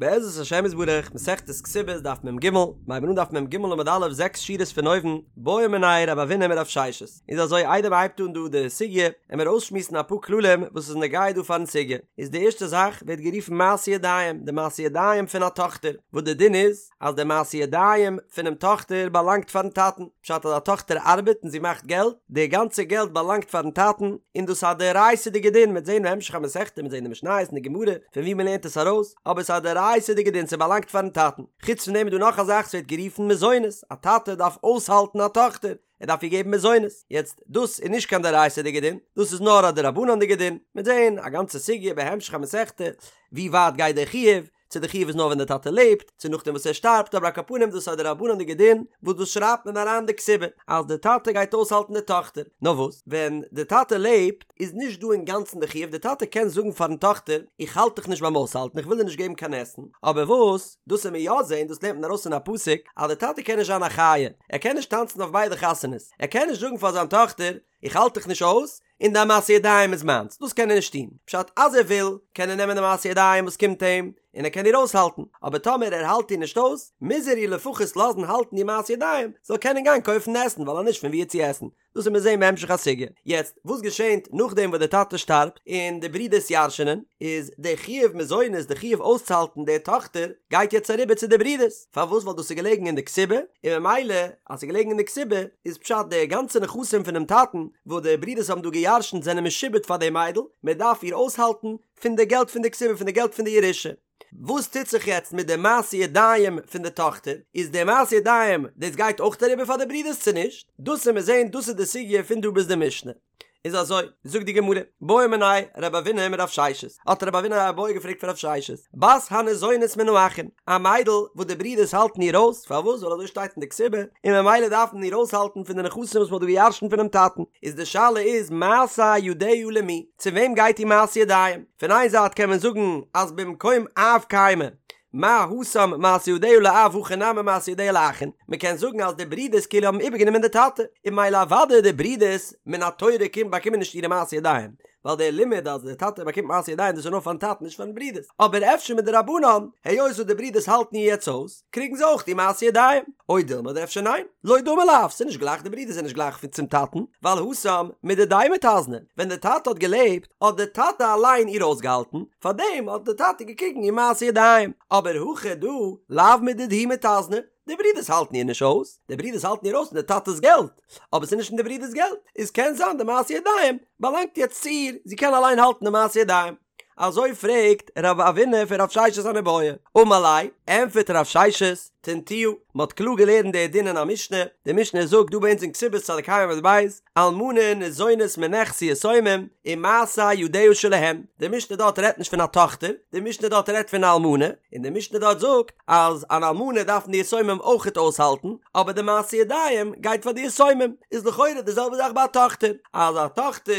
בעזרת השם יתברך, מסכת כתובות דף מ ג, מ'הייבן אן דף מ ג עמוד א' זעקס שורות פון אויבן, בעא מיניה רב אבינא מרב ששת. איז אזוי איידער מ'הייבט אן דא די סוגיא, עמיר אויסשמועסן אפאר כללים וואס איז נוגע דא פארן סוגיא. איז די ערשטע זאך ווערט גערופן מעשה ידיים, די מעשה ידיים פון א טאכטער, וואס די דין איז, אז די מעשה ידיים פונעם טאכטער באלאנגט פארן טאטן, פשט אז א טאכטער ארבעט און זי מאכט געלט, די גאנצע געלט באלאנגט פארן טאטן, און דאס איז א דאורייתא'דיגע דין, מ'וועט זען בהמשך המסכתא, מ'וועט זען די משניות און די גמרא פון וואו מ'לערנט עס ארויס, אבער ס'איז א דאורייתא'דיגע דין, ס'באלאנגט פארן טאטן. חוץ פון דעם איז דא נאך א זאך, ס'ווערט גערופן מזונות, א טאטע דארף אויסהאלטן א טאכטער, ער דארף איר געבן מזונות, יעצט דאס איז נישט קיין דאורייתא'דיגע דין, דאס איז נאר א דרבנן'דיגע דין, מ'וועט זען א גאנצע סוגיא בהמשך המסכתא, ווי ווייט גייט דער חיוב, צו די חיוב איז נאר ווען די טאטע לעבט, צו נאכדעם וואס ער שטארבט, אבער על כל פנים דאס איז א דרבנן'דיגע דין, וואס דאס שרייבט מען אריין די כתובה, אז די טאטע גייט אויסהאלטן די טאכטער. נאר וואס, ווען די טאטע לעבט, איז נישט דא אינגאנצן די חיוב, די טאטע קען זאגן פארן טאכטער, איך האלט דיך נישט ביים אויסהאלטן, איך וויל דיר נישט געבן קיין עסן, אבער וואס, דאס וועט מען יא זען, דאס לערנט מען ארויס פון א פסוק, אז די טאטע קען נישט זיין א חיה, ער קען נישט טאנצן אויף ביידע חתונות, ער קען נישט זאגן פאר זיין טאכטער, איך האלט דיך נישט אויס, און דיין מעשי ידיים איז מיינס, דאס קען ער נישט טון, פשט אז ער וויל, קען ער נעמען די מעשי ידיים וואס קומט אים, און ער קען איר אויסהאלטן, אבער טאמער ער האלט איר נישט אויס, מוז ער איר לפחות לאזן האלטן די מעשי ידיים, זאל קענען גיין קויפן עסן, ווייל אז נישט פון וואו צו עסן, דאס וועט מען זען בהמשך הסוגיא. יעצט, וואס געשענט נאכדעם וואס דער טאטע שטארבט, און די ברידערס ירש'נען, איז די חיוב מזונות, די חיוב אויסצוהאלטן די טאכטער, גייט יעצט אריבער צו די ברידערס. פארוואס? ווייל דאס איז געלעגן אין די כתובה, און ממילא אז ס'איז געלעגן אין די כתובה, איז פשט די גאנצע נכסים פונעם טאטן וואס די ברידערס האבן דא גע'ירש'נט זענען משועבד פאר די מיידל, מען דארף איר אויסהאלטן פון די געלט פון די כתובה, פון די געלט פון די ירושה. וואס טוט זיך יעצט מיט די מעשי ידיים פון די טאכטער? איז די מעשי ידיים דאס גייט אויך אריבער פאר די ברידערס צו נישט? דאס וועט מען זען, דאס איז די סוגיא פון דא ביז די משנה. איז אזוי, זאגט די גמרא, בעא מיניה רב אבינא מרב ששת, האט רב אבינא א בעיא געפרעגט פון רב ששת, בת הניזונת מן האחין, א מיידל וואס די ברידערס האלטן איר אויס, פארוואס? ווייל אזוי שטייט אין די כתובה, און ממילא דארף מען איר אויסהאלטן פון די נכסים וואס מען האט דא געירשנט פונעם טאטן, איז די שאלה איז מעשה ידיה למי, צו וועם גייט איר מעשה ידיים? פון איין זייט קען מען זאגן אז במקום אב קיימא, מה התם מעשה ידיה לאב הכא נמי מעשה ידיה לאחין, מען קען זאגן אז די ברידערס כאילו האבן איבערגענומען די טאטע, און ממילא אוודאי די ברידערס מן התורה קומט באקומען נישט אירע מעשה ידיים, ווייל דער לימוד אז די טאטע באקומט מעשה ידיים דאס איז נאר פארן טאטן נישט פארן ברידערס, אבער אפשר מדרבנן, היות וואס די ברידערס האלטן איר יעצט אויס, קריגן זיי אויך די מעשה ידיים, או דילמא אדער אפשר ניין, לא דמי לאב, ס'איז נישט גלייך די ברידער זענען נישט גלייך צום טאטן, ווייל התם מדידיה מיתזנא, ווען די טאטע האט געלעבט האט די טאטע אליין איר אויסגעהאלטן, פארדעם האט די טאטע געקריגן איר מעשה ידיים, אבער הכא דא לאו מדידהו מיתזנא, די ברידערס האלטן איר נישט אויס, די ברידערס האלטן איר אויס פון די טאטע'ס געלט, אבער ס'איז נישט פון די ברידער'ס געלט, איז קען זיין די מעשה ידיים באלאנגט יעצט צו איר, זי קען אליין האלטן די מעשה ידיים. אזוי פרעגט רב אבינא פון רב ששת אן איבעיא, אמר ליה, ענטפערט רב ששת, תניתוה, מען האט קלאר געלערנט די דין אין א משנה, די משנה זאגט דא ביי אונז אין כתובות צדיק ה' עמוד ב', אלמנה ניזונת מנכסי יתומים ומעשה ידיה שלהן, די משנה דארט רעדט נישט פון א טאכטער, די משנה דארט רעדט פון א אלמנה, און די משנה דארט זאגט אז אן אלמנה דארפן די יתומים אויכעט אויסהאלטן, אבער די מעשה ידיים גייט פאר די יתומים, איז לכאורה די זעלבע זאך ביי א טאכטער, אז א טאכטער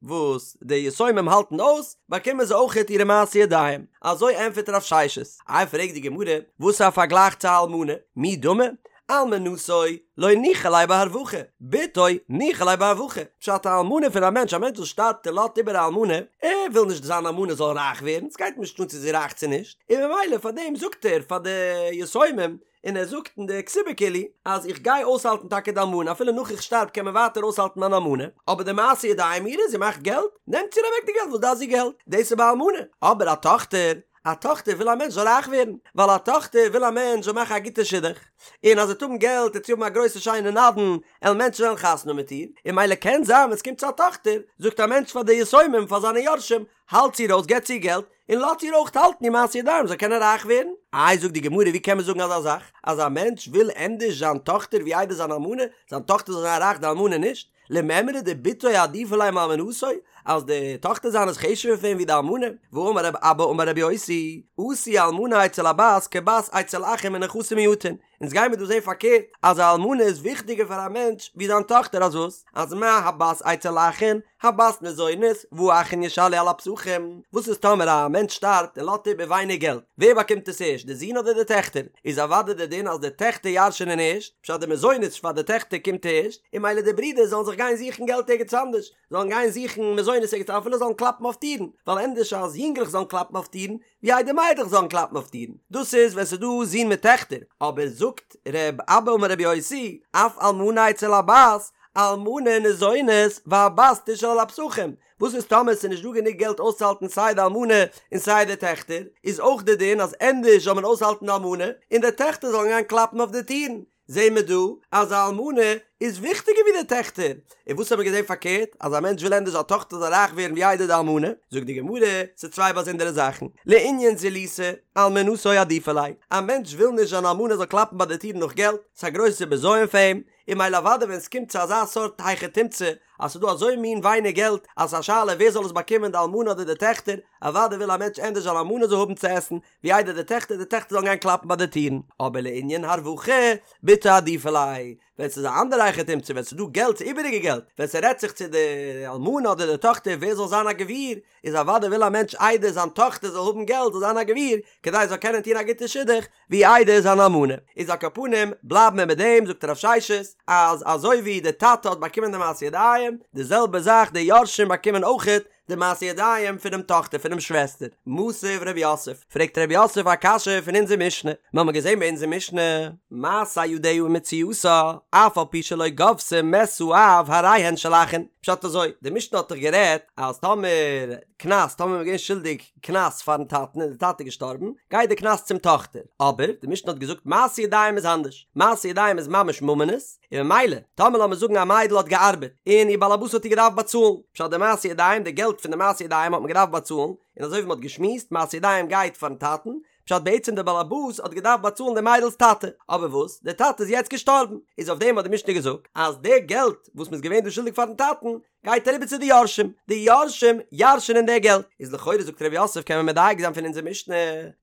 וואס די יתומים האלטן אויס, באקומען זיי אויכעט אירע מעשה ידיים. אזוי ענטפערט רב ששת. איי פרעגט די גמרא, וואס איז א פארגלייך צו א אלמנה? מי דמי? אלמנתו לא ניחא ליה בהרווחה, בתו ניחא ליה בהרווחה. פשט א אלמנה פון א מענטש, א מענטש וואס שטארבט און לאזט איבער א אלמנה, ער וויל נישט זיין אלמנה זאל רייך ווערן, ס'גייט אים נישט אן צו זי איז רייך צו נישט, און ממילא פאר דעם זאגט ער פאר די יתומים, און ער זאגט אין די כתובה כאילו אז איך גיי אויסהאלטן טאקע די אלמנה אפילו נאך איך שטארב קען מען ווייטער אויסהאלטן מיין אלמנה, אבער די מעשה ידיים אירע, זי מאכט געלט, נעמטס איר אוועק די געלט, וואס דארף זי געלט? דאס איז ביי אלמנה, אבער א טאכטער, א טאכטער וויל א מענטש זאל רייך ווערן, ווייל א טאכטער וויל א מענטש זאל מאכן א גוטע שידוך, און אז זי וועט האבן געלט וועט זי האבן א גרויסע שיינע נדן, עלן מענטשן וועלן חתונה האבן מיט איר, און ממילא קען זיין ווען עס קומט צו א טאכטער, זאגט א מענטש פאר די יתומים, פאר זיינע יורשים, האלטס איר אויס, געבטס איר געלט, און לאזט איר אויך האלטן איר מעשה ידיים זאל קענען רייך ווערן. איי זאגט די גמרא ווי קען מען זאגן אזא זאך אז א מענטש וויל ענדערש זיין טאכטער ווי איידער זיין אלמנה, זיין טאכטער זאל זיין רייך די אלמנה נישט? למימרא דבתו עדיפא ליה מאלמנתו, אז די טאכטער זיינע איז חשוב'ער פון אים ווי די אלמנה, והאמר רב אבא אמר רבי יוסי, עשו אלמנה אצל הבת כבת אצל אחין מנכסים מועטין, אונז גיימיר דא זעהן פארקערט אז א אלמנה איז וויכטיגער פאר א מענטש ווי זיין טאכטער אז וואס? אז מה הבת אצל אחין, הבת ניזונת, והאחין ישאלו על הפסחים, וואס איז טאמער א מענטש שטארבט און לאזט איבער ווייניג געלט, ווער באקומט עס ערשט די זין אדער די טעכטער? איז אוודאי די דין אז די טעכטער ירש'ענען ערשט, פשט די מזונות פאר די טעכטער קומט ערשט, און ממילא די ברידער זאלן זיך גיין זוכן געלט ערגעץ אנדערש, זאלן גיין זוכן מזונות. מזונות ערגעץ אפילו זאלן קלאפן אויף טירן, ווייל ענדערש אז יונגלעך זאלן קלאפן אויף טירן, ווי איידער מיידלעך זאלן קלאפן אויף טירן, דאס איז ווען ס'איז דא זין מיט טעכטער, אבער זאגט ר' אבא אמר ר' יוסי, אף אלמנה אצל הבת, אלמנה ניזונת והבת תשאל על הפתחים, וואס איז טאמער ס'איז נישט דא גענוג געלט אויסצוהאלטן סיי די אלמנה און סיי די טעכטער, איז אויך די דין אז ענדערש זאל מען אויסהאלטן די אלמנה און די טעכטער זאלן גיין קלאפן אויף די טירן, זעהן מיר דא אז א אלמנה איז וויכטיגער ווי די טעכטער, און וואס האבן מיר געזעהן פארקערט אז א מענטש וויל ענדערש זיין טאכטער זאל רייך ווערן ווי איידער די אלמנה, זאגט די גמרא, ס'איז צוויי באזונדערע זאכן, לענין זילותא, אלמנתו עדיפא ליה, א מענטש וויל נישט זיין אלמנה זאל קלאפן ביי די טירן נאך געלט, ס'איז א גרויסע בזיון פאר אים, און ממילא אוודאי ווען ס'קומט צו אזא סארט היכי תמצא אז ס'איז דא אזוי מין ווייניג געלט אז ס'איז א שאלה ווער זאל עס באקומען די אלמנה אדער די טעכטער, אוודאי וויל א מענטש ענדערש זיין אלמנה זאל האבן צו עסן ווי איידער די טעכטער, די טעכטער זאלן גיין קלאפן ביי די טירן. אבער לענין הרווחה, בתו עדיפא ליה, ווען ס'איז א אנדערע היכי תמצא ווען ס'איז דא געלט ס'איז איבעריגע געלט, ווען ס'רעדט זיך צו די אלמנה אדער די טאכטער ווער זאל זיין א גביר, איז אוודאי וויל א מענטש איידער זיין טאכטער זאל האבן געלט זאל זיין א גביר, כדי זי זאל קענען טון א גוטע שידוך, ווי איידער זיין אלמנה. איז על כל פנים בלייבן מיר מיט דעם, זאגט רב ששת, אז אזוי ווי די טאטע האט באקומען די מעשי ידיים, די זעלבע זאך די יורשים באקומען אויכעט די מעשי ידיים פונעם טאכטער פונעם שוועסטער. מתיב רב יוסף, פרעגט רב יוסף א קשיא פון אונזער משנה, מיר האבן געזען ביי אונזער משנה, מעשה ידיה ומציאתה, אף על פי שלא גבתה מת האב הרי הן של אחין, פשט אזוי, די משנה האט דאך גערעדט אז טאמער קנס, טאמער מ'איז געווען שולדיג קנס פארן טאטן און די טאטע איז געשטארבן, גייט די קנס צום טאכטער, אבער די משנה האט געזאגט מעשי ידיים איז אנדערש, מעשי ידיים איז ממש ממונות, און ממילא, טאמער לאמיר זאגן א מיידל האט געארבעט, און איר באלעבאס האט איר געדארפט באצאלן, פשט די מעשי ידיים, די געלט פון די מעשי ידיים האט מען געדארפט באצאלן, און אזוי ווי מען האט געשמועסט, מעשי ידיים גייט פארן טאטן, פשט בעצם די באלעבאס האט געדארפט באצאלן די מיידל'ס טאטע, אבער וואס, די טאטע איז יעצט געשטארבן, איז אויף דעם האט די משנה געזאגט, אז די געלט וואס מען איז געווען דא שולדיג פארן טאטן, גייט אריבער צו די יורשים, די יורשים ירש'ענען די געלט, איז לכאורה זאגט ר' יוסף קען מען מדייק זיין פון אונזער משנה,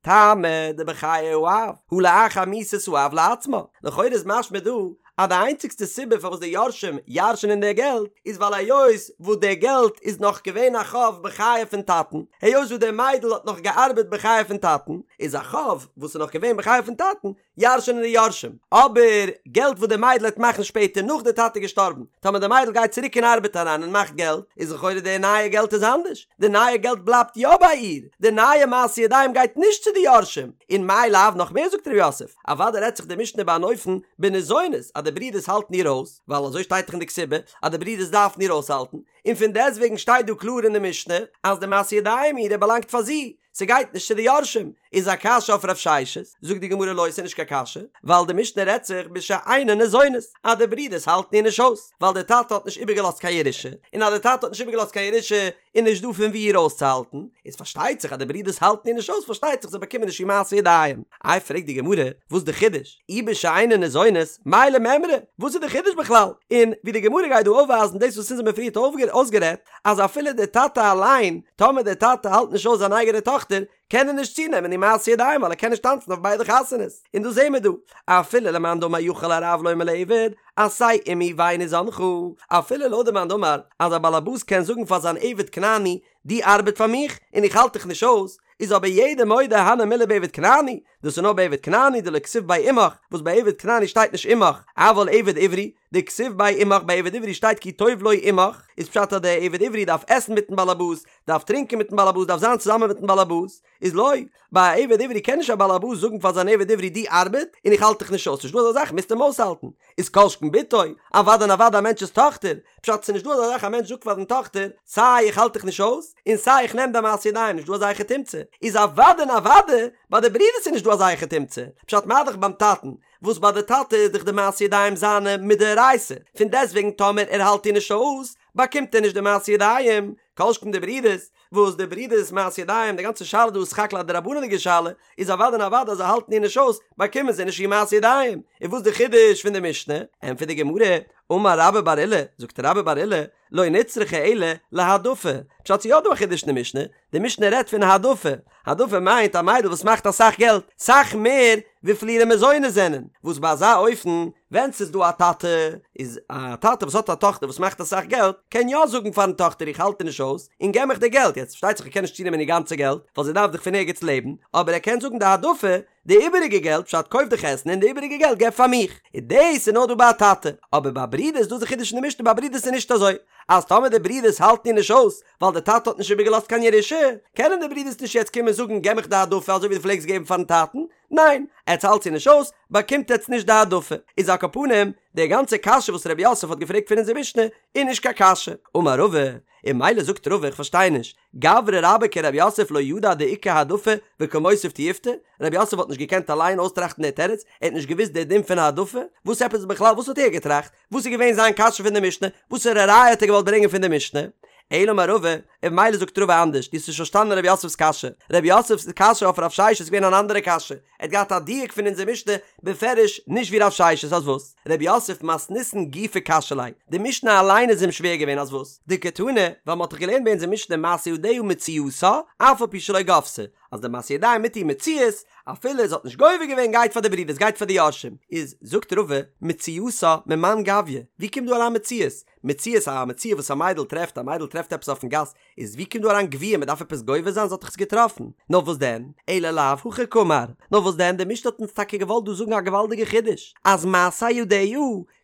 טעמא דבחיי האב, הא לאחר מיתת האב לעצמה, לכאורה איז משמע דא אז די איינציגסטע סיבה פארוואס די יורשים ירש'ענען די געלט איז ווייל היות וואס די געלט איז נאך געווען א חוב בחיי פון טאטן, היות וואס די מיידל האט נאך געארבעט בחיי פון טאטן, איז א חוב וואס איז נאך געווען בחיי פון טאטן, ירש'ענען די יורשים, אבער געלט וואס די מיידל העט מאכן שפעטער נאך די טאטע איז געשטארבן, טאמער די מיידל גייט צוריק אין ארבעט אריין און מאכט געלט, איז לכאורה די נייע געלט איז אנדערש, די נייע געלט בלייבט יא ביי איר, די נייע מעשי ידיים גייט נישט צו די יורשים, און מאי לאו נאך מער זאגט ר' יוסף, אוודאי רעדט זיך די משנה ביי אן אופן בניזונת אז די ברידערס האלטן איר אויס, ווייל אזוי שטייט דאך אין די כתובה אז די ברידערס דארפן איר אויסהאלטן, און פון דעסטוועגן שטייט דא קלאר אין די משנה אז די מעשי ידיים אירע באלאנגט פאר זי, ס'גייט נישט צו די יורשים, איז א קשיא אויף רב ששת, זאגט די גמרא לא ס'איז נישט קיין קשיא, ווייל די משנה רעדט זיך בשאינן ניזונות, אז די ברידערס האלטן איר נישט אויס, ווייל די טאטע האט נישט איבערגעלאזט קיין ירושה, און אז די טאטע האט נישט איבערגעלאזט קיין ירושה איז נישט דא פון וואו איר אויסצוהאלטן, איז פארשטייט זיך אז די ברידערס האלטן איר נישט אויס פארשטייט זיך זיי באקומען נישט איר מעשי ידיים. איי פרעגט די גמרא, וואס די חידוש? אי בשאינן ניזונות, מאי למימרא, וואס איז די חידוש בכלל? און ווי די גמרא גייט דא אויפווייזן דאס וואס אונז האבן פריערט אויסגערעדט, אז אפילו דער טאטע אליין, טאמער דער טאטע האלט נישט אויס זיין אייגענע טאכטער, קען ער נישט צונעמען איר מעשי ידיים ווייל ער קען נישט טאנצן אויף ביידע חתונות. און דאס זעהן מיר דא, אפילו למאן דאמר יכול הרב לומר לעבד, עשה עמי ואיני זנך, אפילו לויט די מאן דאמר אז א באלעבאס קען זאגן פאר זיין עבד כנעני, דו ארבעט פאר מיך און איך האלט דיך נישט אויס, איז אבער יעדער מודה הני מילי בעבד כנעני, דאס איז נאר ביי עבד כנעני דלא כתיב ביה עמך, וואס ביי עבד כנעני שטייט נישט עמך, אבל עבד עברי, דכתיב ביה עמך ביי עבד עברי שטייט כי טוב לו עמך, איז פשט אז דער עבד עברי דארף עסן מיטן באלעבאס, דארף טרינקען מיטן באלעבאס, דארף זיין צוזאמען מיטן באלעבאס, איז לא, ביי א עבד עברי קען נישט א באלעבאס זאגן פאר זיין עבד עברי דו ארבעט און איך האלט דיך נישט אויס, נישט דא אזא זאך מוזט אים אויסהאלטן, איז כל שכן בתו, אוודאי און אוודאי א מענטש'ס טאכטער, פשט ס'נישט דא אזא זאך א מענטש זאגט פאר זיין טאכטער סיי איך האלט דיך נישט אויס און סיי איך נעם דיין מעשי ידיים נישט דא אזא היכי תמצא, איז אוודאי און אוודאי ביי די ברידערס איז נישט דא אזא היכי תמצא, פשט מה דאך ביים טאטן וואס ביי די טאטע איז דאך די מעשי ידיים זיינע מדאורייתא, פון דעסטוועגן טאמער ער האלט איר נישט אויס באקומט ער נישט די מעשי ידיים, כל שכן די ברידערס, וואס די ברידערס מעשי ידיים, די גאנצע שאלה דא איז סך הכל א דרבנן'דיגע שאלה, איז אוודאי און אוודאי אז זיי האלטן איר נישט אויס, באקומען זיי נישט איר מעשי ידיים. און וואס די חידוש פון די משנה? ענטפערט די גמרא, אמר רבה בר עולא, זאגט רבה בר עולא, לא נצרכה אלא להעדפה, פשט ס'איז יא דא א חידוש אין די משנה, די משנה רעדט פון העדפה, העדפה מיינט א מיידל וואס מאכט אסאך געלט, סאך מער וויפיל אירע מזונות זענען, וואס ביי אזא אופן. ווען ס'איז דא א טאטע, איז א טאטע וואס האט א טאכטער וואס מאכט אסאך געלט, קען יא זאגן פארן טאכטער איך האלט דיר נישט אויס, און געב מיך די געלט, יעצט פארשטייט זיך ער קען נישט צונעמען איר גאנצע געלט, ווייל זי דארף דאך פון ערגעץ לעבן, אבער ער קען זאגן די העדפה, די איבעריגע געלט, פשט קויף דיך עסן און די איבעריגע געלט געב פאר מיך, און דאס איז נאר דא ביי א טאטע, אבער ביי ברידערס דאס איז די חידוש אין די משנה ביי ברידערס איז נישט אזוי, אז טאמער די ברידערס האלטן איר נישט אויס, ווייל די טאטע האט נישט איבערגעלאזט קיין ירושה, קענען די ברידערס נישט יעצט קומען זאגן געב מיך די העדפה אזוי ווי דו פלעגסט געבן פארן טאטן, ניין, עטס האלטס איר נישט אויס, באקומט עטס נישט די העדפה. איז על כל פנים, די גאנצע קשיא וואס רב יוסף האט געפרעגט פון אונזער משנה, איז נישט קיין קשיא. אמר רבא, און ממילא זאגט רבא איך פארשטיי נישט, גברא רבה כרב יוסף לא ידע דאיכא העדפה וקא מותיב תיובתא, רב יוסף האט נישט געקענט אליין אויסטראכטן די תירוץ, ער האט נישט געוואוסט די דין פון העדפה, וואס עפעס בכלל וואס האט ער געטראכט? וואס איז געווען זיין קשיא פון די משנה? וואסערע ראיה האט ער געוואלט ברענגען פון די משנה? אלא אמר רבא, און ממילא זאגט רבא אנדערש, דו האסט נישט פארשטאנען רב יוסף'ס קשיא, רב יוסף'ס קשיא אויף רב ששת איז געווען אן אנדערע קשיא, ער האט געהאט א דיוק פון אונזער משנה בפירוש נישט ווי רב ששת, אז וואס? רב יוסף מתניתין גופא קשיא ליה, די משנה אליין איז אים שווער געווען אז וואס? דקתני, ווייל מען האט דאך געלערנט ביי אונזער משנה מעשה ידיה מציאתה, אף על פי שלא גבתה, אז די מעשה ידיים מיט איר מציאות, אפילו זי האט נישט גובה געווען גייט פאר די ברידערס גייט פאר די יורשים, איז זאגט רבא, מציאתה ממאן גביא, ווי קומט דא אריין מציאות? מציאות א מציאה וואס א מיידל טרעפט, א מיידל טרעפט עפעס אויפן גאס, איז ווי קומט דא אריין גביה מען דארף עפעס גובה זיין זי האט דאך עס געטראפן, נאר וואס דען, אלא לאו הכי קאמר, נאר וואס דען די משנה האט אונז טאקע געוואלט דא זאגן א געוואלדיגע חידוש, אז מעשה ידיה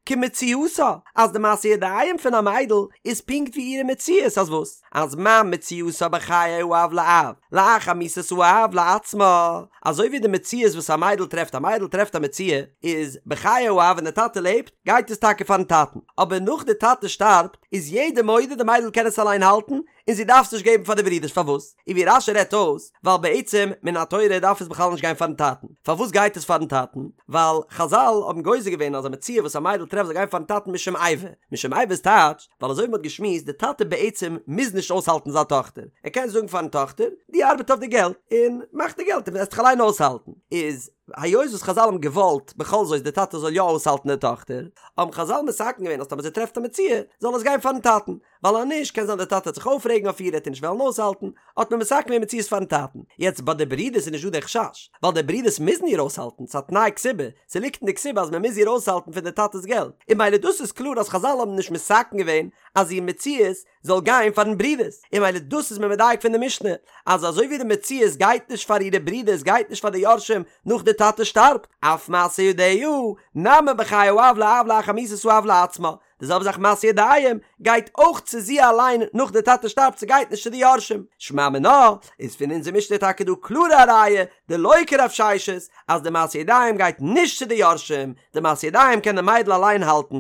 כמציאתה, אז די מעשה ידיים פון א מיידל איז פונקט ווי אירע מציאות, אז וואס? אז מה מציאתה בחיי האב לאב, לאחר מיתת האב לעצמה, אזוי ווי די מציאות וואס א מיידל טרעפט, א מיידל טרעפט א מציאה, איז בחיי האב ווען די טאטע לעבט, גייט עס טאקע פארן טאטן, אבער נאך די טאטע שטארבט, איז יעדער מודה די מיידל קען עס אליין האלטן, און זי דארף עס נישט געבן פאר די ברידערס, פארוואס? און ווי רש"י רעדט אויס, ווייל בעצם מן התורה דארף עס בכלל נישט גיין פארן טאטן, פארוואס גייט עס פארן טאטן? ווייל חזל האבן גוזר געווען אז א מציאה וואס א מיידל טרעפט זאל גיין פארן טאטן משום איבה, משום איבה איז טייטש, ווייל אזוי ווי מ'האט געשמועסט, די טאטע בעצם מוז נישט אויסהאלטן זיין טאכטער, ער קען זאגן פארן טאכטער, דו ארבעט אויף די געלט, און מאך די געלט און וועסט דיך אליין אויסהאלטן, איז היות וואס חזל האבן געוואלט בכל זאת די טאטע זאל יא אויסהאלטן די טאכטער, האבן חזל מתקן געווען אז טאמער זי טרעפט א מציאה, זאל עס גיין פארן טאטן, ווייל אז נישט קען זיין די טאטע וועט זיך אויפרעגן אויף איר ער וועט איר נישט וועלן אויסהאלטן, האט מען מתקן געווען מציאות פארן טאטן. יעצט ביי די ברידערס איז נישט דא די חשש, ווייל די ברידערס מוזן איר אויסהאלטן, ס'איז א תנאי כתובה, ס'ליגט אין די כתובה אז מ'מוז איר אויסהאלטן פון די טאטע'ס געלט, און ממילא דאס איז קלאר אז חזל האבן נישט מתקן געווען אז איר מציאות זאל גיין פארן ברידערס, און ממילא דאס איז מען מדייק פון די משנה, אז אזוי ווי די מציאות גייט נישט פאר אירע ברידערס גייט נישט פאר די יורשים נאך די טאטע שטארבט, אף מעשה ידיה, נמי בחיי האב לאב לאחר מיתת האב לעצמה, די זעלבע זאך מעשה ידיים גייט אויך צו זי אליין נאך די טאטע שטארבט ס'גייט נישט צו די יורשים, שמע מינה איז פון אונזער משנה טאקע דא קלארע א ראיה דלא כרב ששת אז די מעשה ידיים גייט נישט צו די יורשים, די מעשה ידיים קען די מיידל אליין האלטן,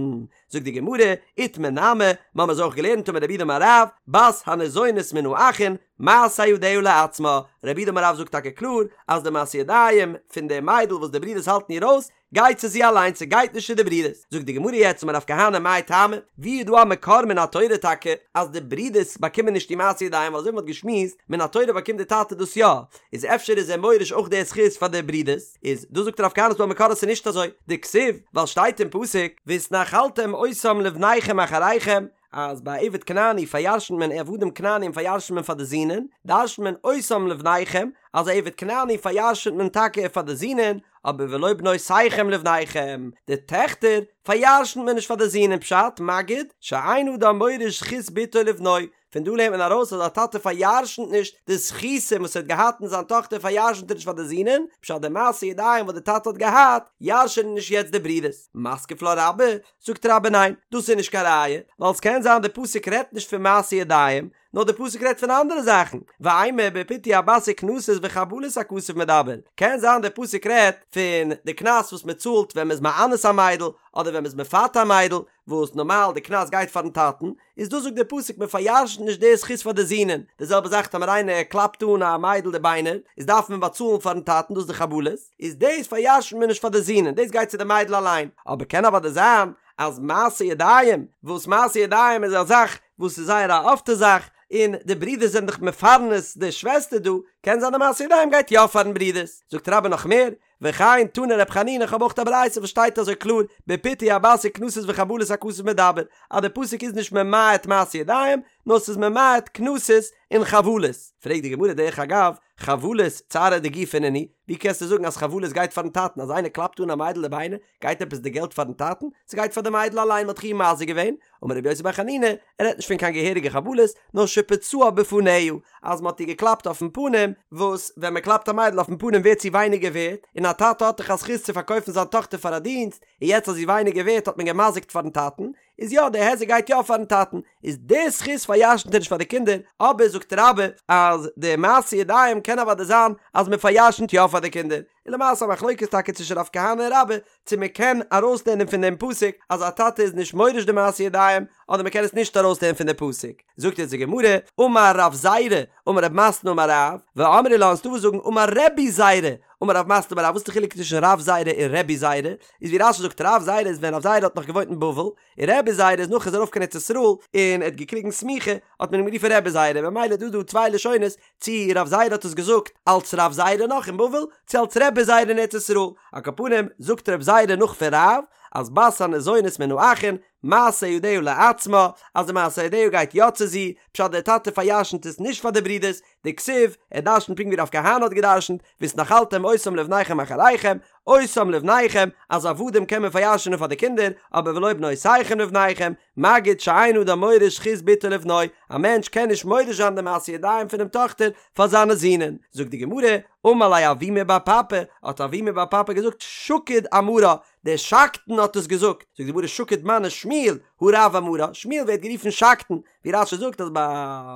זאגט די גמרא, איתמר נמי, מ'האמער אזוי אויך געלערנט אמר רב יהודה אמר רב, בת הניזונית מן האחין, מעשה ידיה לעצמה, רב יהודה אמר רב זאגט טאקע קלאר אז די מעשה ידיים פון די מיידל וואס די ברידערס האלטן איר אויס, גייט צו זי אליין ס'גייט נישט צו די ברידערס, זאגט די גמרא יעצט אמר רב כהנא מאי טעמא, ווי איז דא א מקור מן התורה טאקע אז די ברידערס באקומען נישט די מעשה ידיים ווייל אזוי ווי מ'האט געשמועסט מן התורה באקומט די טאטע דאס יא, איז אפשר איז ער מוריש אויך די זכות פאר די ברידערס, איז דא זאגט רב כהנא ס'דא א מקור אז ס'איז נישט אזוי, דכתיב, ווייל שטייט אין פסוק, והתנחלתם אותם לבניכם אחריכם, אז ביי עבד כנעני פאר'ירש'נט מען עבדים כנענים פאר'ירש'נט מען פאר די זינען, דרש'נט מען אותם לבניכם, אז א עבד כנעני פאר'ירש'נט מען טאקע פאר די זינען, אבער ולא בנותיכם לבניכם, די טעכטער פאר'ירש'נט מען נישט פאר די זינען פשט, מגיד, שאין אדם מוריש זכות בתו לבנו, פון דא לערנט מען ארויס אז א טאטע פאר'ירש'נט נישט די זכותים וואס ער האט געהאט אין זיין טאכטער פאר'ירש'נט ער נישט פאר די זינען, פשט די מעשה ידיים וואס די טאטע האט געהאט ירש'ענען נישט יעצט די ברידערס. מתקיף לה רבה, זאגט רבה ניין, דאס איז נישט קיין ראיה, ווייל ס'קען זיין די פסוק רעדט נישט פון מעשה ידיים, נאר די פסוק רעדט פון אנדערע זאכן, ואימא בפיתוי הבת וקנסות וחבלות הכתוב מדבר, קען זיין די פסוק רעדט פון די קנס וואס מען צאלט ווען מען איז מאנס א מיידל, אדער ווען מען איז מפתה א מיידל, וואס נארמאל די קנס גייט פארן טאטן, איז דא זאגט די פסוק מען פאר'ירש'נט נישט די זכות פאר די זינען, די זעלבע זאך טאמער איינער קלאפט אן א מיידל די ביינער, איז דארף מען באצאלן פארן טאטן דאס איז די חבלות, איז דאס פאר'ירש'נט מען נישט פאר די זינען, דאס גייט צו די מיידל אליין, אבער קען אוודאי זיין אז מעשה ידיים, וואס מעשה ידיים איז א זאך וואס איז זייער א אפטע זאך, און די ברידערס זענען דאך מפרנס די שוועסטער דא, קען זיין די מעשה ידיים גייט יא פארן ברידערס, זאגט רבה נאך מער, וכן תני ר' חנינא כ'האב אויך א ברייתא וואס שטייט אזוי קלאר, בפיתוי הבת וקנסות וחבלות הכתוב מדבר, אז די פסוק איז נישט ממעט מעשה ידיים, נאר ס'איז ממעט קנסות און חבלות. פרעגט די גמרא דרך אגב, חבלות צערא דגופא נינהו, ווי קענסטו זאגן אז חבלות גייט פארן טאטן, אז איינער קלאפט אן א מיידל די ביינער, גייט עפעס די געלט פארן טאטן? ס'גייט פאר די מיידל אליין, מ'האט דאך איר מזיק געווען. אמר רבי יוסי בר חנינא, ער רעדט נישט פון קיין געהעריגע חבלות, נאר שפצעה בפניה, אז מ'האט איר געקלאפט אויפן פנים, וואס ווען מ'קלאפט א מיידל אויפן פנים ווערט זי ווייניגער ווערט, און א טאטע האט דאך א זכות צו פארקויפן זיין טאכטער פאר א דינסט, און יעצט אז זי איז ווייניגער ווערט האט מען געמזיקט פארן טאטן, איז יא די היזק גייט יא פארן טאטן, איז די זכות פאר'ירש'נט ער נישט פאר די קינדער, אבער זאגט רבה אז די מעשה ידיים קען אוודאי זיין אז מען פאר'ירש'נט יא פאר די קינדער, און למעשה א מחלוקת טאקע צווישן רב כהנא און רבה צו מען קען ארויסלערנען פון דעם פסוק אז א טאטע איז נישט מוריש די מעשה ידיים אדער מען קען עס נישט ארויסלערנען פון די פסוק, זאגט יעצט די גמרא, אמר רב זירא, אמר רב מתנה אמר רב, ואמרי לה און ס'דא וואס זאגן אמר רבי זירא, אמר רב מתנה אמר רב, וואס איז די חילוק צווישן רב זירא און רבי זירא? איז ווי רש"י זאגט רב זירא איז ווען רב זירא האט נאך געוואוינט אין בבל, און רבי זירא איז נאך ער איז ארויף קיין ארץ ישראל און ער האט געקריגן סמיכה האט מען אים גערופן רבי זירא, ממילא איז דא דא צוויי לשונות צי רב זירא האט עס געזאגט אלץ רב זירא נאך אין בבל צי אלץ רבי זירא אין ארץ ישראל, על כל פנים זאגט רב זירא נאך פון רב אז בת הניזונית מן האחין מעשה ידיה לעצמה אז די מעשה ידיה גייט יא צו זי, פשט דער טאטע פאר'ירש'נט עס נישט פאר די ברודערס, דכתיב, ער דרשנ'ט פונקט ווי רב כהנא האט געדרשנ'ט, והתנחלתם אותם לבניכם אחריכם, אותם לבניכם, אז עבדים קען מען פאר'ירש'נען פאר די קינדער, אבער ולא בנותיכם לבניכם, מגיד שאין אדם מוריש זכות בתו לבנו, א מענטש קען נישט מוריש זיין די מעשה ידיים פונעם טאכטער פאר זיינע זינען. זאגט די גמרא, אמר ליה אבימי בר פפא, האט אבימי בר פפא געזאגט, שקוד אמרה, דער שקדן האט עס געזאגט, זאגט די גמרא שקוד מני שמואל, הא רב אמרה, שמואל ווערט גערופן שקדן, ווי רש"י זאגט אז ביי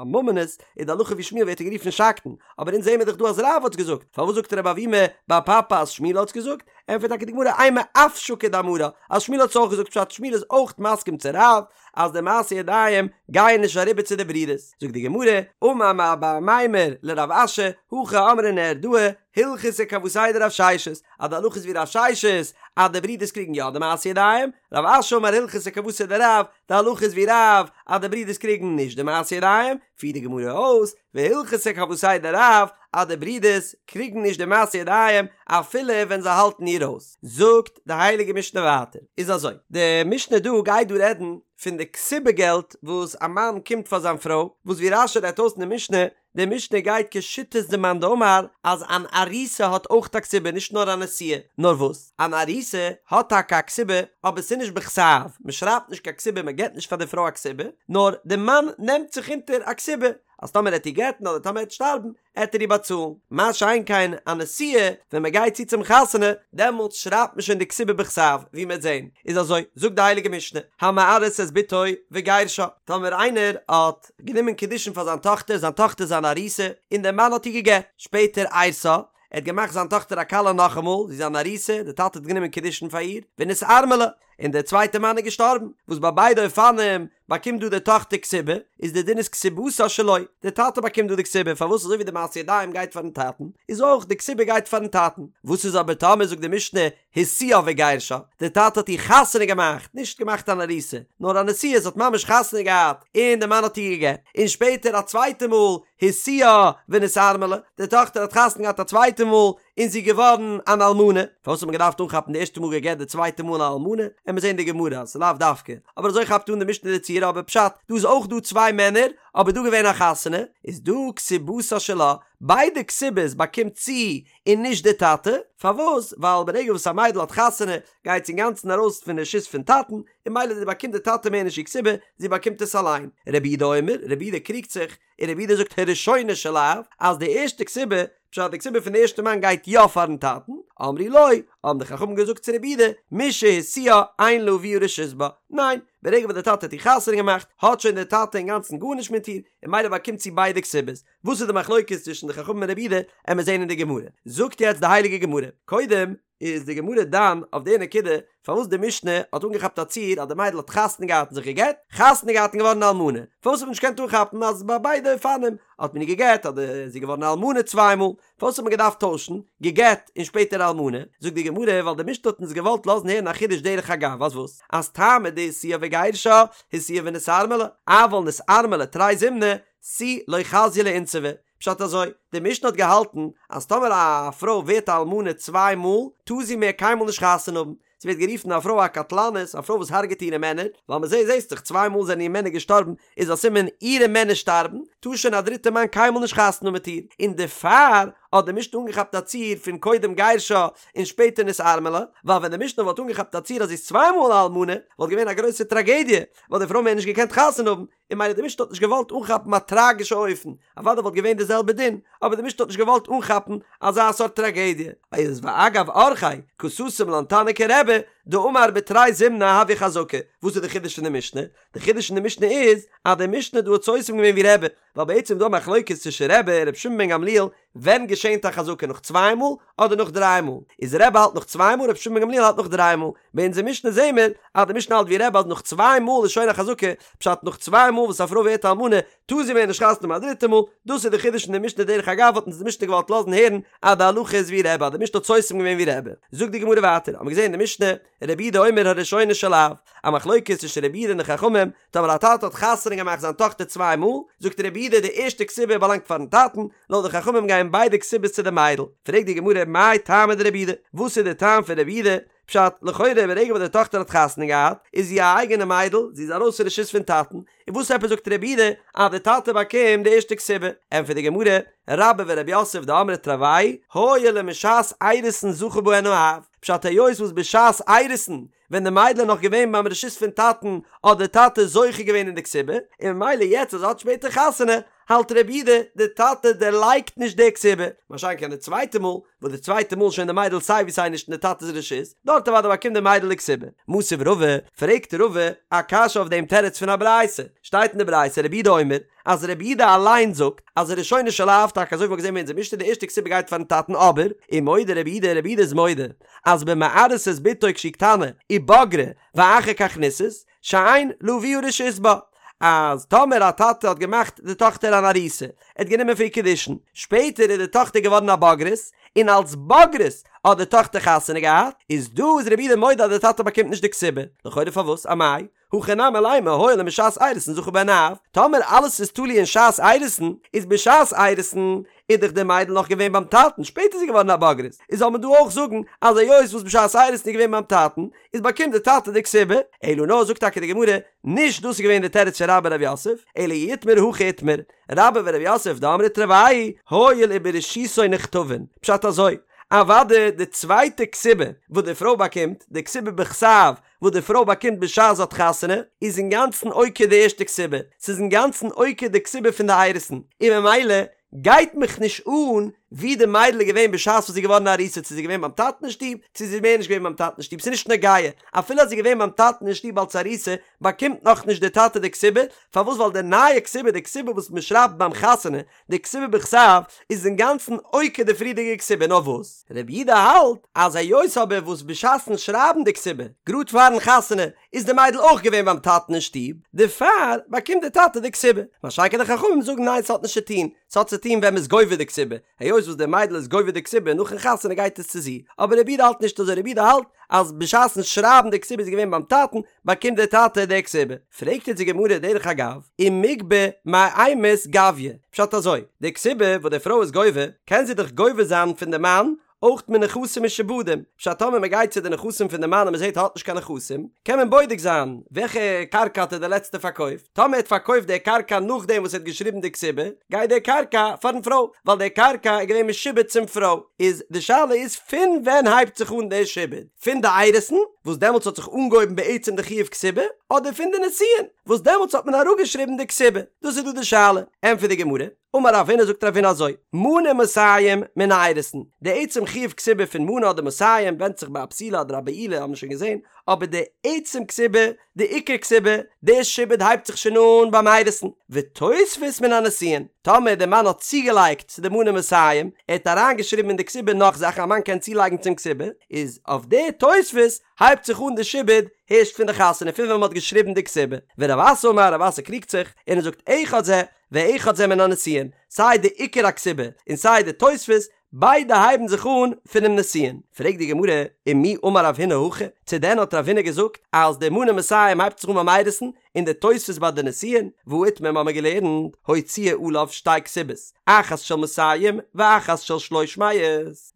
ממונות איז די הלכה ווי שמואל ווערט ער גערופן שקדן, אבער אונז זעמער דאך דא אז רב האט עס געזאגט, פארוואס זאגט רב אבימי בר פפא אז שמואל האט עס געזאגט? ענטפערט טאקע די גמרא אימא אף שקוד אמרה, אז שמואל האט עס אויך געזאגט פשט שמואל איז אויך מסכים צו רב אז די מעשה ידיים גייען נישט אריבער צו די ברידערס, זאגט די גמרא, אמר מר בר אמימר לרב אשי, הכי אמרי נהרדעי, הלכתא כוותיה דרב ששת, אז די הלכה איז ווי רב ששת אז די ברידערס קריגן יא די מעשה ידיים, רב אשי אמר הלכתא כוותיה דרב, די הלכה איז ווי רב אז די ברידערס קריגן נישט די מעשה ידיים, פירט די גמרא אויס, והלכתא כוותיה דרב אז די ברידערס קריגן נישט די מעשה ידיים אפילו ווען זיי האלטן איר אויס. זאגט די הייליגע משנה ווייטער, איז אזוי, די משנה דא גייט דא רעדן פון די כתובה געלט וואס א מאן קומט פאר זיין פרוי, וואס ווי רש"י רעדט אויס אין די משנה, די משנה גייט כשיטת די מאן דאמר אז אן ארוסה האט אויך א כתובה נישט נאר א נשואה, נאר וואס? אן ארוסה האט טאקע א כתובה אבער ס'איז נישט בכתב, מ'שרייבט נישט קיין כתובה מ'געט נישט פאר די פרוי א כתובה, נאר די מאן נעמט זיך אונטער א כתובה אז טאמער עט איר גט'ן אדער טאמער עט שטארבן עט ער איר באצאלן, מה שאין כן א נשואה ווען מ'גייט צו צום חתונה דעמאלטס שרייבט מען שוין די כתובה בכתב ווי מ'עט זען, איז אזוי זאגט די הייליגע משנה המארס את בתו וגירשה, טאמער איינער האט גענומען קידושין פאר זיין טאכטער, זיין טאכטער איז אן ארוסה, און דער מאן האט איר גע'גט. שפעטער אירסה, ער האט געמאכט זיין טאכטער א כלה נאכאמאל, זי איז אן ארוסה, דער טאטע האט גענומען קידושין פאר איר, ונתארמלה, און דער צווייטער מאן איז געשטארבן, וואס ביי ביידע אופנים באקומט דא די טאכטער כתובה, איז די דין איז כתובתה שלו, דער טאטע באקומט דא די כתובה, פארוואס אזוי ווי די מעשה ידיים גייט פארן טאטן, איז אויך די כתובה גייט פארן טאטן. וואס איז אבער טאמער זאגט די משנה השיאה וגירשה, דער טאטע האט איר חתונה געמאכט, נישט געמאכט אן ארוסה, נאר א נשואה, זי האט ממש חתונה געהאט, און דער מאן האט איר גע'גט, און שפעטער א צווייטע מאל, השיאה ונתארמלה, די טאכטער האט חתונה געהאט א צווייטע מאל, און זי איז געווארן אן אלמנה, פארוואס האט מען געדארפט אנכאפן די ערשטע מאל גע'גט די צווייטע מאל אן אלמנה, עמיר זען די גמרא אז ס'איז לאו דווקא, אבער אזוי כאפט אן די משנה די ציור, אבער פשט, דא איז אויך דא צוויי מענער, אבער דא געווען א חתונה, איז דא כתובתה שלה, ביידע כתובות באקומט זי און נישט די טאטע, פארוואס? ווייל ברגע וואס א מיידל האט חתונה גייט זי אינגאנצן ארויס פון רשות פון טאטן, און ממילא באקומט די טאטע מער נישט איר כתובה, זי באקומט עס אליין. רבי יהודה אומר, רבי יהודה קריגט זיך, און רבי יהודה זאגט הראשונה של אב, אז די ערשטע כתובה, פשט די כתובה פון די ערשטע מאן גייט יא פארן טאטן, אמרו לו, האבן די חכמים געזאגט צו רבי יהודה, משהשיאה אין לאביה רשות בה, ניין, ברגע וואס די טאטע האט איר חתונה געמאכט, האט שוין די טאטע אינגאנצן גארנישט מיט איר, און ממילא באקומט זי ביידע כתובות. וואס איז די מחלוקת צווישן די חכמים און רבי יהודה, עמיר זעהן אין די גמרא. זאגט יעצט די הייליגע גמרא, קודם איז די גמרא דן אויף די נקודה פארוואס די משנה האט אנגעכאפט א ציור אז די מיידל האט חתונה געהאט און זיך גע'גט, חתונה געהאט און געווארן אלמנה, פארוואס האט מען נישט געקענט אנכאפן אז ביי ביידע אופנים האט מען איר גע'גט אדער איז זי געווארן אלמנה צוויי מאל, פארוואס האט מען געדארפט טוישן, גע'גט און שפעטער אלמנה? זאגט די גמרא, ווייל די משנה האט אונז געוואלט לאזן הערן א חידוש דרך אגב, אז וואס? אז טעמא דהשיאה וגירשה, השיאה ונתארמלה, אבל נתארמלה תרי זימני, תו לא חזיא לאינסובי. פשט אזוי, די משנה האט געהאלטן אז טאמער א פרוי ווערט א אלמנה צוויי מאל, טאר זי מער קיינמאל נישט חתונה האבן, ס'ווערט גערופן א פרוי א קטלנית, א פרוי וואס הרג'עט אירע מענער, ווייל מ'זעט זעסט דאך צוויי מאל זענען איר מענער געשטארבן, איז א סימן אירע מענער שטארבן, טאר שוין א דריטע מאן קיינמאל נישט חתונה האבן מיט איר, און דערפאר האט די משנה אנגעכאפט א ציור פון קודם גירשה און שפעטער נתארמלה, ווייל ווען די משנה וואלט אנגעכאפט א ציור אז זי איז צוויי מאל א אלמנה, וואלט געווען א גרויסע טראגעדיע, וואלט די פרוי מער נישט געקענט חתונה האבן, און ממילא די משנה האט נישט געוואלט אנכאפן א טראגישע אופן, אוודאי וואלט געווען די זעלבע דין, אבער די משנה האט נישט געוואלט אנכאפן אזא סארט טראגעדיע. איז ואגב אורחיה קא סתם לן תנא כרבי דאמר בתרי זימני הויא חזקה, וואס איז די חידוש פון די משנה? די חידוש פון די משנה איז אז די משנה דא האט סותם געווען ווי רבי, ווייל בעצם איז דא א מחלוקת צווישן רבי און רבי שמעון בן גמליאל ווען געשענט א חזקה נאך צוויי מאל אדער נאך דריי מאל, איז רבי האלט נאך צוויי מאל רבי שמעון בן גמליאל האלט נאך דריי מאל, ביי אונזער משנה זעהן מיר אז די משנה האלט ווי רבי אז נאך צוויי מאל איז שוין א חזקה, פשט נאך צוויי מאל וואס א פרוי ווערט אלמנה טאר זי מער נישט חתונה האבן א דריטע מאל, דאס איז די חידוש אין די משנה דרך אגב האט אונז די משנה געוואלט לאזן הערן אז די הלכה איז ווי רבי אז די משנה האט סותם געווען ווי רבי, זאגט די גמרא ווייטער האבן מיר געזעהן אין די משנה רבי יהודה אומר הראשונה של אב, א מחלוקת צווישן רבי יהודה און די חכמים, טאמער א טאטע האט חתונה געמאכט זיין טאכטער צוויי מאל, זאגט רבי יהודה די ערשטע כתובה באלאנגט פארן טאטן, לויט די חכמים גייען ביידע כתובות צו די מיידל. פרעגט די גמרא מאי טעמא דרבי יהודה, וואס איז די טעם פון רבי יהודה? פשט, לכאורה ברגע וואס די טאכטער האט חתונה געהאט, איז זי א אייגענע מיידל, זי איז ארויס פון רשות פון טאטן, און וואס עפעס זאגט רבי יהודה אז די טאטע באקומט די ערשטע כתובה? ענטפערט די גמרא, רבה ורב יוסף דאמרי תרוייהו הואיל ומשעת אירוסין זכה בהן האב, פשט היות וואס בשעת אירוסין ווען די מיידל איז נאך געווען ביים רשות פון טאטן האט די טאטע זוכה געווען אין די כתובה, און ממילא יעצט אז זי האט שפעטער חתונה האלט רבי יהודה די טאטע דערלייגט נישט די כתובה, מה שאין כן די צווייטע מאל וואס די צווייטע מאל שוין די מיידל סיי ווי סיי נישט אין די טאטע'ס רשות, דארט אוודאי באקומט די מיידל די כתובה. מתיב רבא, פרעגט רבא א קשיא אויף דעם תירוץ פון א ברייתא, שטייט אין די ברייתא רבי יהודה אומר, אז רבי יהודה אליין זאגט אז הראשונה של אב, טאקע אזוי ווי מ'האט געזען אין אונזער משנה די ערשטע כתובה גייט פארן טאטן אבער, ומודה רבי יהודה רבי יהודה איז מודה אז במארס את בתו כשהיא קטנה ובגרה ואחר כך נישאת שאין לאביה רשות בה אז טאמער א טאטע האט געמאכט די טאכטער אן ארוסה ער האט גענומען פון איר קידושין שפעטער איז די טאכטער געווארן א בוגרת און אלס בוגרת האט די טאכטער חתונה געהאט איז דא איז רבי יהודה מודה אז די טאטע באקומט נישט די כתובה לכאורה פארוואס אמאי הכא נמי לימא הואיל ומשעת אירוסין זכה בהן האב, טאמער אלעס איז תלוי אין שעת אירוסין, איז בשעת אירוסין איז דאך די מיידל נאך געווען ביים טאטן, שפעטער איז זי געווארן א בוגרת, איז זאל מען דא אויך זאגן אז היות וואס בשעת אירוסין איז געווען ביים טאטן, איז באקומט די טאטע די כתובה, אלא נאר זאגט טאקע די גמרא, נישט דאס איז געווען די תירוץ פון רבה ורב יוסף, אלא אי איתמר הכי איתמר, רבה ורב יוסף דאמרי תרוייהו, הואיל וברשותו נכתבין, פשט אזוי, אוודאי די צווייטע כתובה וואס די פרוי באקומט, די כתובה בכתב, וואס די פרוי באקומט בשעת זי האט חתונה, איז אינגאנצן עוקר די ערשטע כתובה, ס'איז אינגאנצן עוקר די כתובה פון די אירוסין, און ממילא גייט מיך נישט אן ווי די מיידל איז געווען בשעת וואס זי איז געווארן א ארוסה, צו זי איז געווען ביים טאטן אין שטוב, צו זי איז מער נישט געווען ביים טאטן אין שטוב, ס'איז נישט נוגע, אפילו אז זי איז געווען ביים טאטן אין שטוב אלס ארוסה, באקומט נאכנישט די טאטע די כתובה, פארוואס ווייל די נייע כתובה, די כתובה וואס מען שרייבט ביים חתונה, די כתובה בכתב איז אינגאנצן עוקר די פריערדיגע כתובה נאר וואס רבי יהודה האלט אז היות אבער וואס בשעת'ן שרייבן די כתובה גראד פארן חתונה איז די מיידל אויך געווען ביים טאטן אין שטוב דערפאר באקומט די טאטע די כתובה מה שאין כן די חכמים זאגן ניין ס'האט נישט צו טון ס'האט צו טון ווען מ'איז גובה די כתובה היות וואס די מיידל איז גובה די כתובה נאכן חתונה גייט עס צו זי אבער רבי יהודה האלט נישט אזוי רבי יהודה האלט אז בשעת'ן שרייבן די כתובה איז געווען ביים טאטן באקומט דער טאטע די כתובה. פרעגט אונז די גמרא דרך אגב, ומיגבא מאימת גביא, פשט אזוי, די כתובה וואס די פרוי איז גובה, קען זי דאך גובה זיין פון די מאן אויך מנכסים משועבדים, פשט טאמער מען גייט צו די נכסים פון די מאן און מען זעט ער האט נישט קיין נכסים, קען מען בודק זיין וועלכע קרקע האט ער די לעצטע פארקויפט, טאמער ער האט פארקויפט די קרקע נאכדעם וואס ער האט געשריבן די כתובה, גייט די קרקע פארן פרוי, ווייל די קרקע איז געווען משועבד צום פרוי, איז די שאלה איז פון ווען הייבט זיך אן די שעבוד? פון די אירוסין, וואס דעמאלטס האט זיך אנגעהויבן בעצם די חיוב כתובה, אדער פון די נישואין, וואס דעמאלטס האט מען אראפגעשריבן די כתובה? דאס איז דא די שאלה. ענטפערט די גמרא, אמר רב הונא זאגט רב הונא אזוי, מנה מאתים מן האירוסין, די עצם חיוב כתובה פון מנה אדער מאתים ווענדט זיך ביי א בתולה אדער א בעולה האבן מיר שוין געזען, אבער די עצם כתובה, די עיקר כתובה, די שעבוד הייבט זיך שוין אן ביים אירוסין, ותוספת מן הנישואין, טאמער די מאן האט צוגעלייגט צו די מנה מאתים, ער האט אריינגעשריבן אין די כתובה נאך זאכן א מאן קען צולייגן צום כתובה, איז אויף די תוספת הייבט זיך אן די שעבוד הערשט פון די חתונה פון ווען מען האט געשריבן די כתובה, ורב אסי אמר רב אסי קריגט זיך און ער זאגט אחד זה ואחד זה מן הנישואין, סיי די עיקר הכתובה און סיי די תוספת, ביידע הייבן זיך אן פונעם נישואין. פרעגט די גמרא, ומי אמר רב הונא הכי? צו דען האט רב הונא געזאגט אז די מנה מאתים הייבט זיך אן ביים אירוסין און די תוספת ביי די נישואין, והא איתמר מ'האמיר געלערנט, הוציאה עליו שתי כתובות, אחת של מאתים ואחת של שלוש מאות.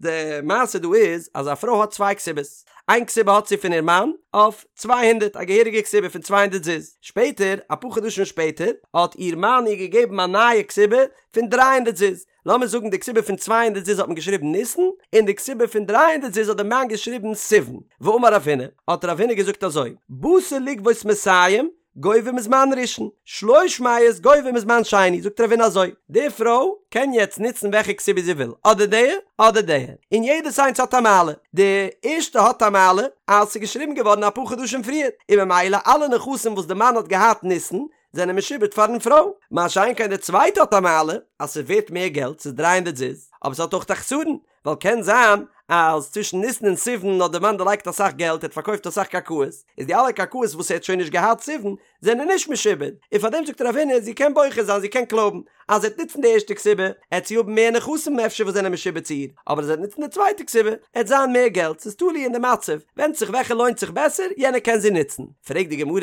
די מעשה דא איז אז א פרוי האט צוויי כתובות, איין כתובה האט זי פון איר מאן אויף 200, א געהעריגע כתובה פון 200 זוז, שפעטער, אפאר חדשים שפעטער, האט איר מאן איר געגעבן א נייע כתובה פון 300 זוז, לאמיר זאגן די כתובה פון 200 זוז האט מען געשריבן ניסן, און די כתובה פון 300 זוז האט די מאן געשריבן סיוון, ואמר רב הונא, האט רב הונא געזאגט אזוי, באת לגבות מאתים, גובה מזמן ראשון, שלוש מאות גובה מזמן שני, זאגט רב הונא אזוי, די פרוי קען יעצט נוצן וועלכע כתובה זי וויל, אדער די, אדער די, און יעדעס איינס האט א מעלה, די ערשטע האט א מעלה אז ס'איז געשריבן געווארן אפאר חדשים פריער, און ממילא אלע נכסים וואס די מאן האט געהאט ניסן, זענען משועבד פארן פרוי, מה שאין כן די צווייטע האט א מעלה אז ס'איז ווערט מער געלט, ס'איז דרײַ הונדערט זוז, אבער ס'האט אויך א חסרון, ווייל קען זיין אז צווישן ניסן און סיוון האט די מאן דערלייגט אסאך געלט, ער האט פארקויפט אסאך קרקעות, איז די אלע קרקעות וואס ער האט שוין נישט געהאט סיוון זענען נישט משועבד, און פארדעם זאגט רב הונא זי קען בוחר זיין זי קען קלויבן, אז זי וועט נוצן די ערשטע כתובה עט זי האבן מער נכסים אפשר וואס זענען משועבד צו איר, אבער אז זי וועט נוצן די צווייטע כתובה עט זיין מער געלט, ס'איז תלוי אין די מצב, ווענדט זיך וועלכע לוינט זיך בעסער יענע קען זי נוצן. פרעגט די גמרא,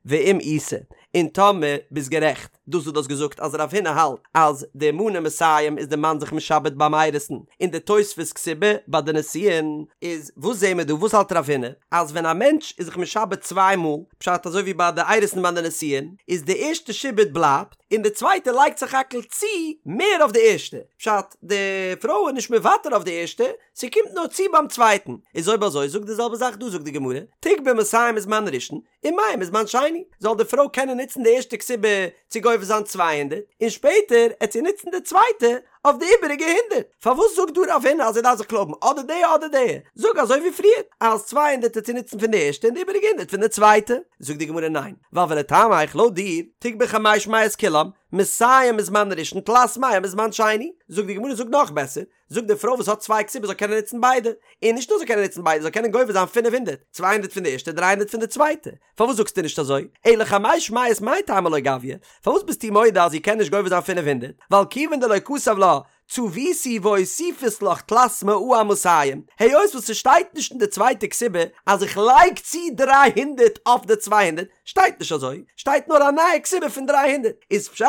ואם איתא, און טאמער ביסט גערעכט, דאס וואס דו האסט געזאגט אז רב הונא האלט אז די מנה מאתים איז די מאן זיך משעבד ביים אירוסין און די תוספת כתובה ביי די נישואין, איז וואס זעהן מיר דא? וואס האלט רב הונא? אז ווען א מענטש איז זיך משעבד צוויי מאל, פשט אזוי ווי ביי די אירוסין ביי די נישואין, איז די ערשטע שעבוד בלייבט, און די צווייטע לייגט סך הכל צו מער אויף די ערשטע, פשט די פרוי איז נישט מוותר אויף די ערשטע, ס'קומט נאר צו ביים צווייטן, איז אויב אזוי זאג די זעלבע זאך דא זאגט די גמרא, תיגבי מאתים מזמן ראשון, ומאה מזמן שני, זאל די פרוי קענען נוצן די ערשטע כתובה צו גובה זיין 200, און שפעטער עט זי נוצן די צווייטע אויף די איבעריגע הונדערט. פארוואס זאגט דא רב הונא אז זי דארף זיך קלויבן אדער די אדער די? זאג אזוי ווי פריער, אז 200 עט זי נוצן פון די ערשטע און די איבעריגע הונדערט פון די צווייטע. זאגט די גמרא ניין, ווייל ולטעמיך לויט דיר, תיגבי חמש מאות כולם, מאתים מזמן ראשון תלת מאה מזמן שני. זאגט די גמרא זאג נאך בעסער, זאג די פרוי וואס האט צוויי כתובות זאל קענען נוצן ביידע, און נישט נאר זאל קענען נוצן ביידע זאל קענען גובה זיין 500, 200 פון די ערשטע 300 פון די צווייטע, פארוואס זאגסטו נישט אזוי? אלא חמש מאות מאי טעמא לא גביא, פארוואס ביסטו מודה אז זי קען נישט גובה זיין 500, ווייל כיוון דלא כתב לה צביתי ואוסיפית לך תלת מאה אמאתים, היות וואס ס'שטייט נישט אין די צווייטע כתובה אז איך לייג צו 300 אויף די 200, שטייט נישט אזוי, שטייט נאר א נייע כתובה פון 300, איז פשט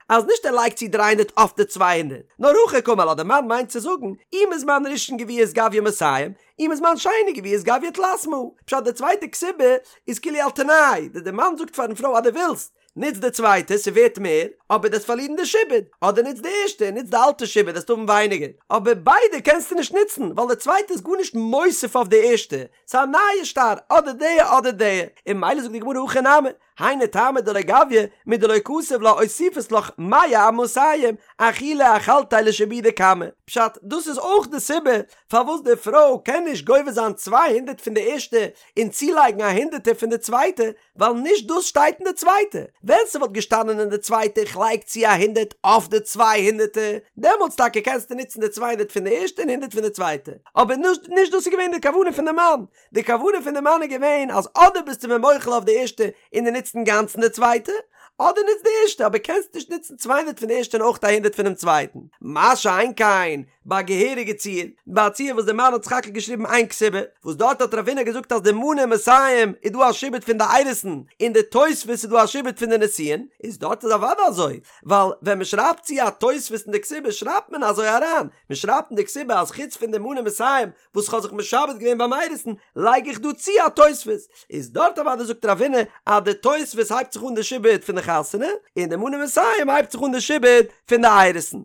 אז נישט ער לייגט צו 300 אויף די 200, נאר הכי קאמר לה, די מאן מיינט צו זאגן, אי מזמן ראשון גבית גביא מאתים, אי מזמן שני גבית גביא תלת מאה, פשט די צווייטע כתובה איז כאילו על תנאי, די מאן זאגט פארן פרוי אז דו ווילסט, נוץ די צווייטע, ס'ווערט מער, אבער דו וועסט פארלירן די שעבוד, אדער נוץ די ערשטע און נוץ די אלטע שעבוד וועסטו האבן ווייניגער, אבער ביידע קענסטו נישט נוצן, ווייל די צווייטע איז גארנישט מוסיף אויף די ערשטע, ס'איז א נייע שטר, אדער די אדער די, און ממילא זאגט די גמרא הכי נמי, היינו טעמא דלא גביא, מדלא כתב לה אוסיפית לך מאה אמאתים, אחולי אחלתיה לשעבודא קמא. פשט, דאס איז אויך די סיבה פארוואס די פרוי קען נישט גובה זיין 200 פון די ערשטע און צולייגן א הונדערטער פון די צווייטע, ווייל נישט דאס שטייט אין די צווייטע, ווען ס'וואלט געשטאנען אין די צווייטע איך לייג צו א הונדערט אויף די צוויי הונדערטער, דעמאלטס טאקע קענסטו נוצן די 200 פון די ערשטע און הונדערט פון די צווייטע, אבער נישט נישט דאס איז געווען די כוונה פון די מאן, די כוונה פון די מאן איז געווען אז אדער ביסטו מיר מוחל אויף די ערשטע און דו נוצט אינגאנצן די צווייטע, אדער נוץ די ערשטע אבער קענסט נישט נוצן 200 פון די ערשטע און אויך א הונדערט פונעם צווייטן, מה שאין כן ביי א געהעריגע ציור, ביי א ציור וואס די מאן האט סך הכל געשריבן איין כתובה, וואס דארט האט רב הונא געזאגט אז די מנה מאתים איז דא א שעבוד פון די אירוסין, און די תוספת איז דא א שעבוד פון די נישואין, איז דארט איז אוודאי אזוי, ווייל ווען מען שרייבט צו א תוספת אין די כתובה שרייבט מען אזוי אריין, מען שרייבט אין די כתובה אז חוץ פון די מנה מאתים וואס כ'האב זיך משעבד געווען ביים אירוסין, לייג איך דא צו א תוספת, איז דארט אוודאי זאגט רב הונא אז די תוספת הייבט זיך אן די שעבוד פון די חתונה, און די מנה מאתים הייבט זיך אן די שעבוד פון די אירוסין.